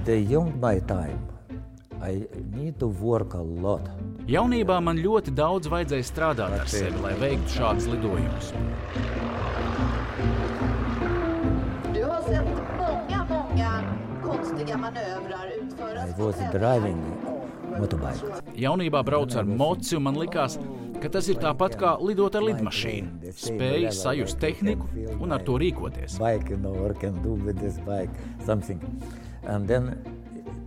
The young my time, I need to work a lot. Jaunībā man ļoti daudz vajadzēja strādāt ar sevi, lai veiktu šādus lidojumus. I was driving motorbike. Jaunībā braucu ar moci, un man likās, ka tas ir tāpat kā lidot ar lidmašīnu. Spēju sajust tehniku un ar to rīkoties. Bike, or can do with this bike something. And then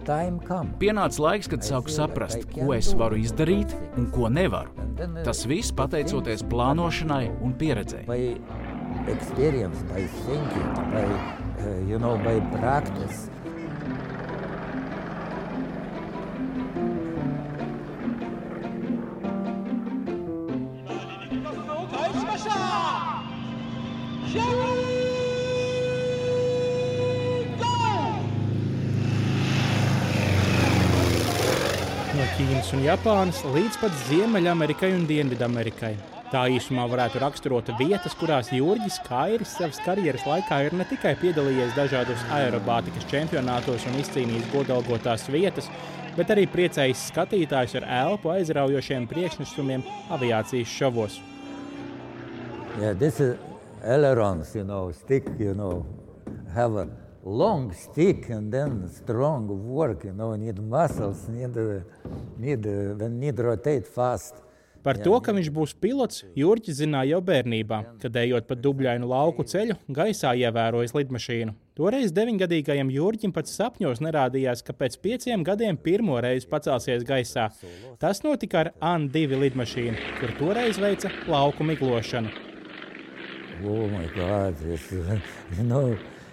time come. Pienāca laiks, kad sāku saprast, ko es varu izdarīt un ko nevaru. Tas viss pateicoties plānošanai un pieredzei. By experience, by thinking, by practice. No Ķīnas un Japānas līdz pat Ziemeļamerikai un Dienvidamerikai. Tā īsumā varētu raksturot vietas, kurās Jurģis Kairis savas karjeras laikā ir ne tikai piedalījies dažādos aerobātikas čempionātos un izcīnījis godalgotās vietas, bet arī priecējis skatītājus ar elpu aizraujošiem priekšnesumiem aviācijas šovos. Yeah, this is ailerons, stick, have a long stick and then strong work, need muscles, need rotate fast. Par to, ka viņš būs pilots, Jurģis zināja jau bērnībā, kad ejot pa dubļainu lauku ceļu, gaisā ievērojis lidmašīnu. Toreiz 9-gadīgajam Jurģim pat sapņos nerādījās, ka pēc 5 gadiem pirmo reizi pacelsies gaisā. Tas notika ar An-2 lidmašīnu, kur toreiz veica lauku miglošanu. Oh my God,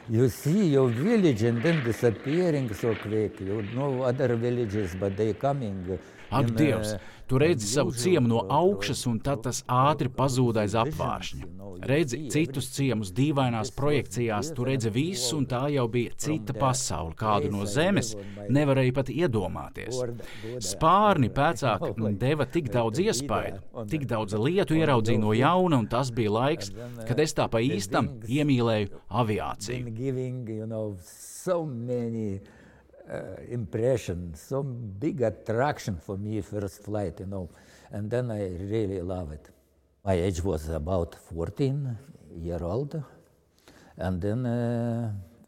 you see your village and then disappearing so quick. You know other villages, but they coming. Ak, Dievs, tu redzi savu ciemu no augšas, un tad tas ātri pazūd aiz apvāršņa. Redzi citus ciemus dīvainās projekcijās, tu redzi visu, un tā jau bija cita pasaule, kādu no zemes nevarēja pat iedomāties. Spārni pēcāk deva tik daudz iespaidu, tik daudz lietu ieraudzīju no jauna, un tas bija laiks, kad es tā pa īstam iemīlēju aviāciju. Impression, so big attraction for me first flight, and then I really love it. My age was about 14-year-old, and then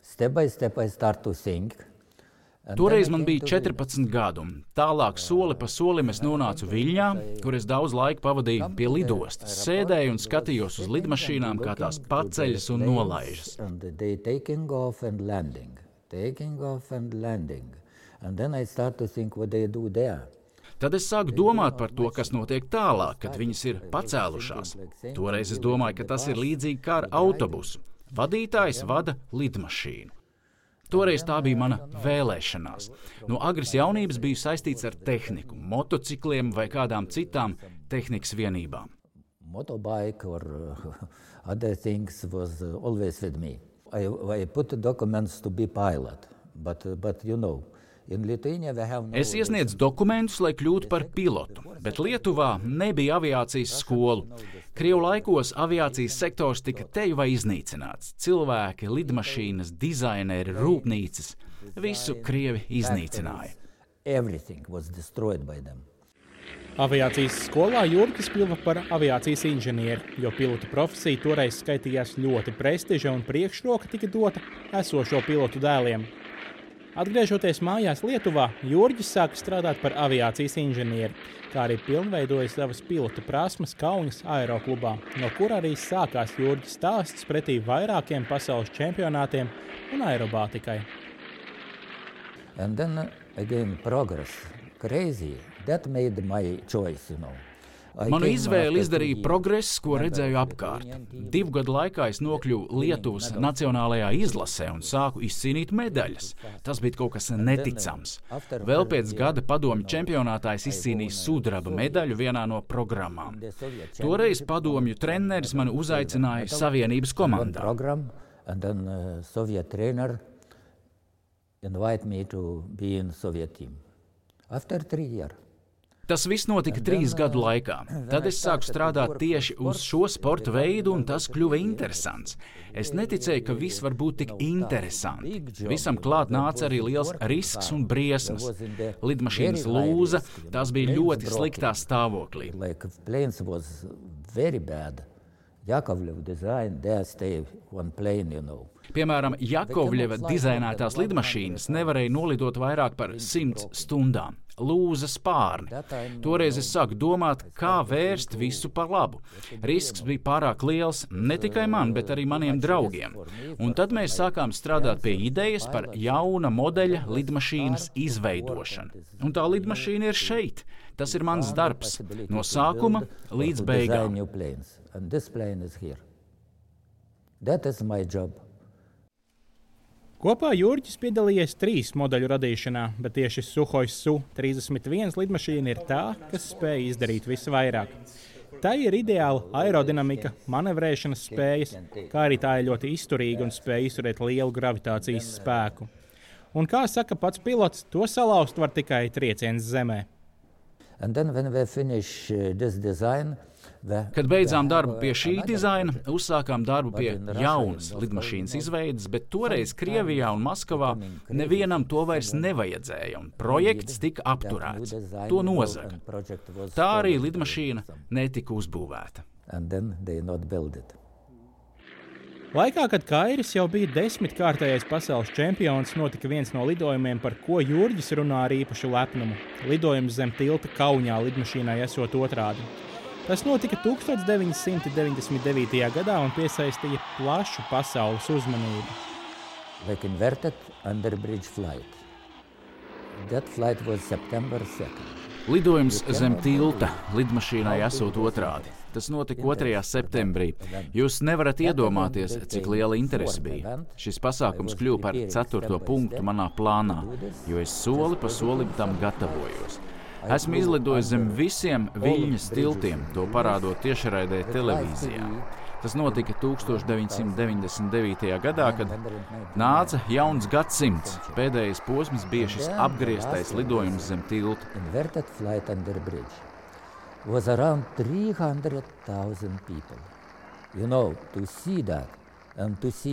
step by step I start to think. Toreiz man bija 14 gadu, un tālāk soli pa solim es nonācu Viļņā, kur es daudz laika pavadīju pie lidostas, sēdēju un skatījos uz lidmašīnām, kā tās paceļas un nolaižas. Taking off and landing. And then I start to think what they do there. Tad es sāku domāt par to, kas notiek tālāk, kad viņas ir pacēlušās. Toreiz es domāju, ka tas ir līdzīgi kā ar autobusu. Vadītājs vada lidmašīnu. Toreiz tā bija mana vēlēšanās. No agras jaunības biju saistīts ar tehniku, motocikliem vai kādām citām tehnikas vienībām. Motorbike or other things was always with me. I put documents to be pilot, but in Lithuania we have no... Es iesniedzu dokumentus, lai kļūtu par pilotu, bet Lietuvā nebija aviācijas skolu. Krievu laikos aviācijas sektors tika teju vai iznīcināts. Cilvēki, lidmašīnas, dizaineri, rūpnīcas, visu Krievi iznīcināja. Everything was destroyed by them. Aviācijas skolā Jurģis kļuva par aviācijas inženieri, jo pilota profesija toreiz skaitījās ļoti prestiža un priekšroka tika dota esošo pilotu dēliem. Atgriežoties mājās Lietuvā, Jurģis sāka strādāt par aviācijas inženieri, kā arī pilnveidoja savas pilota prasmes Kaunas aeroklubā, no kur arī sākās Jurģis stāsts pretī vairākiem pasaules čempionātiem un aerobātikai. And then again progress, crazy. That made my choice, Manu izvēli izdarīja progress, ko redzēju apkārt. 2 gadu laikā es nokļuvu Lietuvas nacionālajā izlasē un sāku izcīnīt medaļas. Tas bija kaut kas neticams. Vēl pēc gada padomju čempionātā es izcīnīju sudraba medaļu vienā no programmām. Toreiz padomju treneris mani uzaicināja Savienības komandā. And then Soviet trainer invite me to be in Soviet team. After 3 years. Tas viss notika 3 gadu laikā. Tad es sāku strādāt tieši uz šo sporta veidu, un tas kļuva interesants. Es neticēju, ka viss var būt tik interesanti. Visam klāt nāca arī liels risks un briesmas. Lidmašīnas lūza, tās bija ļoti sliktā stāvoklī. Piemēram, Jakovļeva dizainētās lidmašīnas nevarēja nolidot vairāk par 100 stundām. Lūza spārni. Toreiz es sāku domāt, kā vērst visu par labu. Risks bija pārāk liels ne tikai man, bet arī maniem draugiem. Un tad mēs sākām strādāt pie idejas par jauna modeļa lidmašīnas izveidošanu. Un tā lidmašīna ir šeit. Tas ir mans darbs. No sākuma līdz beigām. Kopā Jurģis piedalījies 3 modeļu radīšanā, bet tieši Suhoj Su-31 lidmašīna ir tā, kas spēja izdarīt visvairāk. Tā ir ideāla aerodinamika, manevrēšanas spējas, kā arī tā ir ļoti izturīga un spēja izturēt lielu gravitācijas spēku. Un kā saka pats pilots, to salauzt var tikai trieciens zemē. Kad beidzām darbu pie šī dizaina, uzsākām darbu pie jaunas lidmašīnas izveides, bet toreiz Krievijā un Maskavā nevienam to vairs nevajadzēja, un projekts tika apturēts. To nozaga. Tā arī lidmašīna netika uzbūvēta. Laikā, kad Kairis jau bija 10-kārtējais pasaules čempions, notika viens no lidojumiem, par ko Jurģis runā ar īpašu lepnumu. Lidojums zem tilta Kaunijā lidmašīnai esot otrādi. Tas notika 1999. gadā un piesaistīja plašu pasaules uzmanību. Lidojums zem tilta lidmašīnai esot otrādi. Tas notika 2. septembrī. Jūs nevarat iedomāties, cik liela interese bija. Šis pasākums kļuva par 4. punktu manā plānā, jo es soli pa solim tam gatavojos. Esmu izlidojis zem visiem Viļņas tiltiem, to parādot tiešraidē televīzijā. Tas notika 1999. gadā, kad nāca jauns gadsimts. Pēdējais posms bija šis apgrieztais lidojums zem tilta.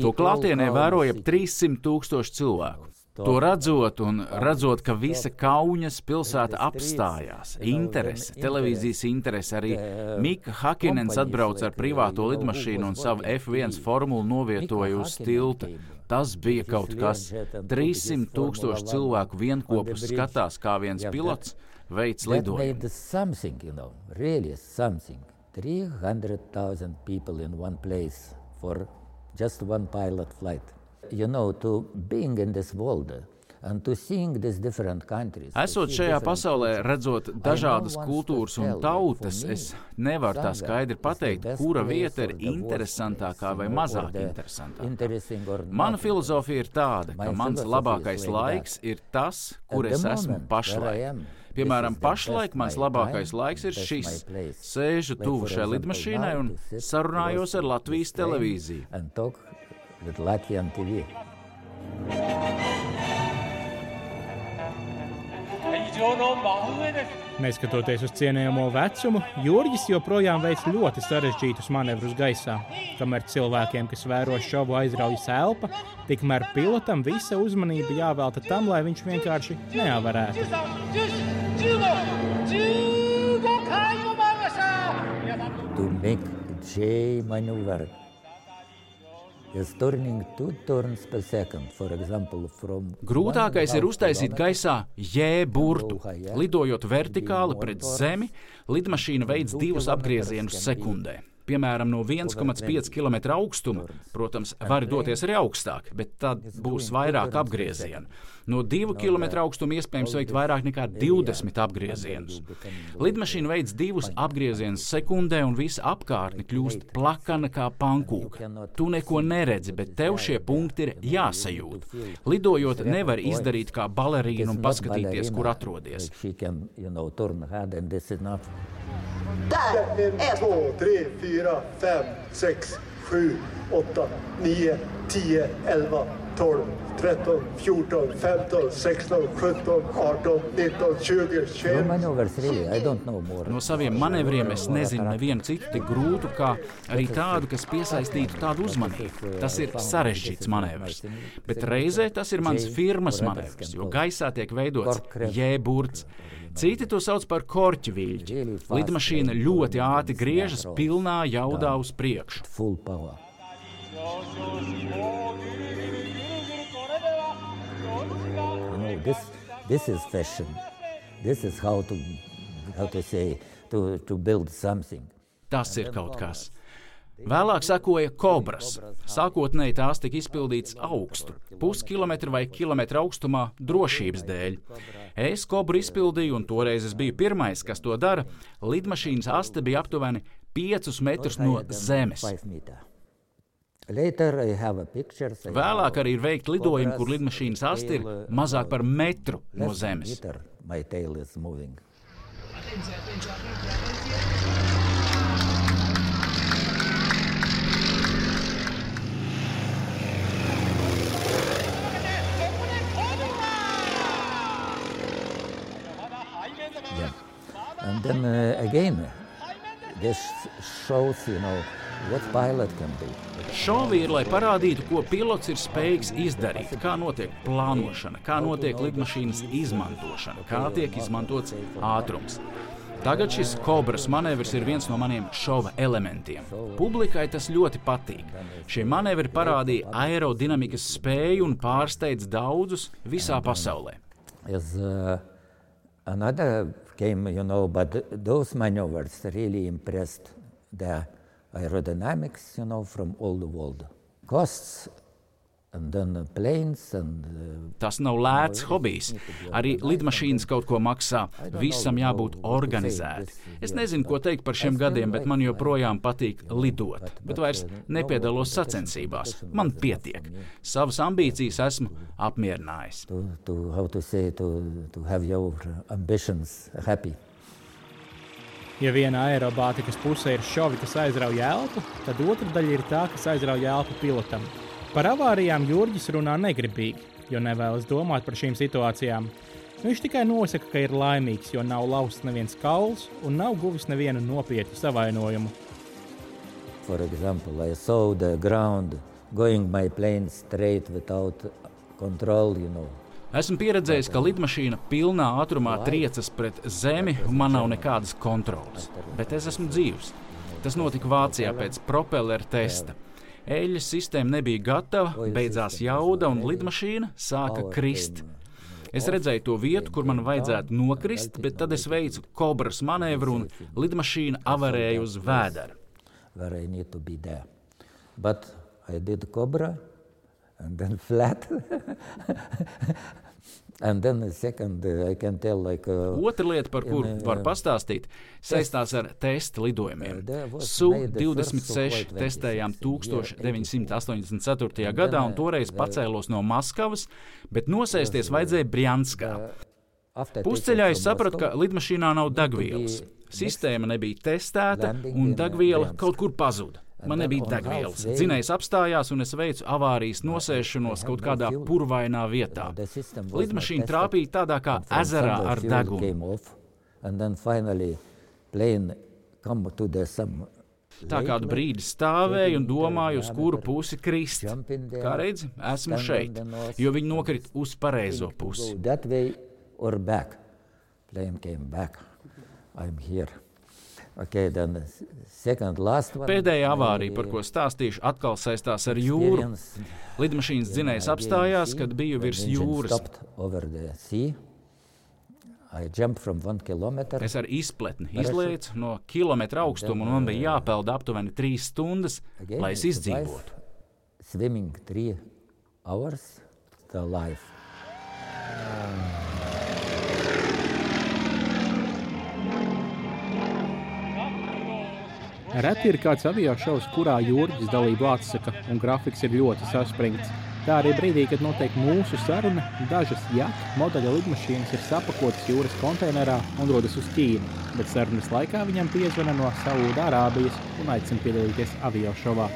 To klātienē vēroja 300,000 cilvēku. To redzot, ka visa Kaunas pilsēta apstājās. Interese, televīzijas interese, arī Mika Hakinens atbrauca ar privāto lidmašīnu un savu F1 formulu novietoja uz tilta. Tas bija kaut kas. 300,000 cilvēku vienkopus skatās, kā viens pilots veids lidojumu. 300,000 people in one place for just one pilot flight. To being in this world and to seeing these different countries. Esot šajā pasaulē, redzot dažādas kultūras un tautas, es nevaru tā skaidri pateikt, kura vieta ir interesantākā vai mazāk interesantākā. Mana filozofija ir tāda, ka mans labākais laiks ir tas, kur es esmu pašlaik. Piemēram, pašlaik mans labākais laiks ir šis. Sēžu tuvu šai lidmašīnai un sarunājos ar Latvijas televīziju. With Latvian TV. Neskatoties uz cienījamo vecumu, Jurģis joprojām veic ļoti sarežģītus manevrus gaisā. Kamēr cilvēkiem, kas vēro šovu, aizraujas elpa, tikmēr pilotam visa uzmanība jāvelta tam, lai viņš vienkārši neavarētu. To make J maneuver. Grūtākais ir uztaisīt gaisā J burtu. Lidojot vertikāli pret zemi, lidmašīna veids 2 apgriezienus sekundē. Piemēram, no 1,5 km augstuma, protams, var doties arī augstāk, bet tad būs vairāk apgriezienu. No 2 km augstuma iespējams veikt vairāk nekā 20 apgriezienus. Lidmašīna veids 2 apgriezienus sekundē un visa apkārtne kļūst plakana kā pankūka. Tu neko neredzi, bet tev šie punkti ir jāsajūt. Lidojot nevar izdarīt kā balerīna un paskatīties, kur atrodies. 1, 2, 3, 4, 5, 6, 7, 8, 9, 10, 11, 12, 13, 14, 15, 16, 17, 18, 19, 20, 21. Maneuvers, really, I don't know more. No saviem manevriem es nezinu nevienu citu tik grūtu, kā arī tādu, kas piesaistītu tādu uzmanību. Tas ir sarežģīts manevrs. Bet reizē tas ir mans firmas manevrs, jo gaisā tiek veidots J-burts. Citi to sauc par korķu viļķi. Lidmašīna ļoti ātri griežas pilnā jaudā uz priekšu. Full power. This is fashion. This is how to say, to build something. Tas ir kaut kas. Vēlāk sekoja kobras. Sākotnēji tās tika izpildītas augstu, puskilometru vai kilometru augstumā drošības dēļ. Es kobru izpildīju, un toreiz es biju pirmais, kas to dara. Lidmašīnas aste bija aptuveni 5 metrus no zemes. Vēlāk arī ir veikti lidojumi, kur lidmašīnas aste ir mazāk par metru no zemes. Yeah. And then again, this shows, what pilot can do. Šovi ir, lai parādītu, ko pilots ir spējīgs izdarīt, kā notiek plānošana, kā notiek lidmašīnas izmantošana, kā tiek izmantots ātrums. Tagad šis kobras manevrs ir viens no maniem šova elementiem. Publikai tas ļoti patīk. Šie manevri parādīja aerodinamikas spēju un pārsteidz daudzus visā pasaulē. Another came, but those maneuvers really impressed the aerodynamics, from all the world. Costs, and then planes and... Tas nav lēts hobijs. Arī lidmašīnas kaut ko maksā. Visam jābūt organizēti. Es nezinu, ko teikt par šiem gadiem, bet man joprojām patīk lidot. Bet vairs nepiedalos sacensībās. Man pietiek. Savas ambīcijas esmu apmierinājis. To have your ambitions happy. Ja viena aerobātikas puse ir šovi, kas aizrauj elpu, tad otra daļa ir tā, kas aizrauj elpu pilotam. Par avārijām Jurģis runā negribīgi, jo nevēlas domāt par šīm situācijām. Viņš tikai nosaka, ka ir laimīgs, jo nav lausts neviens kauls un nav guvis nevienu nopietnu savainojumu. For example, I saw the ground going my plane straight without control, Esmu pieredzējis, ka lidmašīna pilnā ātrumā triecas pret zemi un man nav nekādas kontrolas. Bet es esmu dzīvs. Tas notika Vācijā pēc propelleru testa. Eļļas sistēma nebija gatava, beidzās jauda un lidmašīna sāka krist. Es redzēju to vietu, kur man vajadzētu nokrist, bet tad es veicu kobras manevru un lidmašīna avarēja uz vēdera. Where I need to be there. But I did cobra and then flat. And then the second, I can tell Otra lieta, par kuru var pastāstīt, saistās ar testa lidojumiem. Su-26 testējām 1984. gadā un toreiz pacēlos no Maskavas, bet nosēsties vajadzēja Brjanskā. Pusceļā es sapratu, ka lidmašīnā nav degvielas. Sistēma nebija testēta un degviela kaut kur pazuda. Man nebija degvielas. Dzinējs apstājās un es veicu avārijas nosēšanos kaut kādā purvainā vietā. Lidmašīna trāpīja tādā kā ezerā ar degunu. Tā kādu brīdi stāvēju un domāju, uz kuru pusi krist. Kā redzi, esmu šeit, jo viņi nokrita uz pareizo pusi. Okay, Pēdējā avārija, par ko stāstīšu, atkal saistās ar jūru. Lidmašīnas dzinējs apstājās, kad biju virs jūras. Es ar izpletni izlēcu no kilometra augstuma un man bija jāpeld aptuveni 3 stundas, lai es izdzīvotu. Swimming 3 hours, the life. Reti ir kāds aviošovs, kurā Jurģis dalību atsaka un grafiks ir ļoti saspringts. Tā arī brīdī, kad notiek mūsu saruna, dažas modeļa lidmašīnas ir sapakotas jūras konteinerā un dodas uz Ķīnu, bet sarunas laikā viņam piezvana no Saūda Arābijas un aicina piedalīties aviošovā.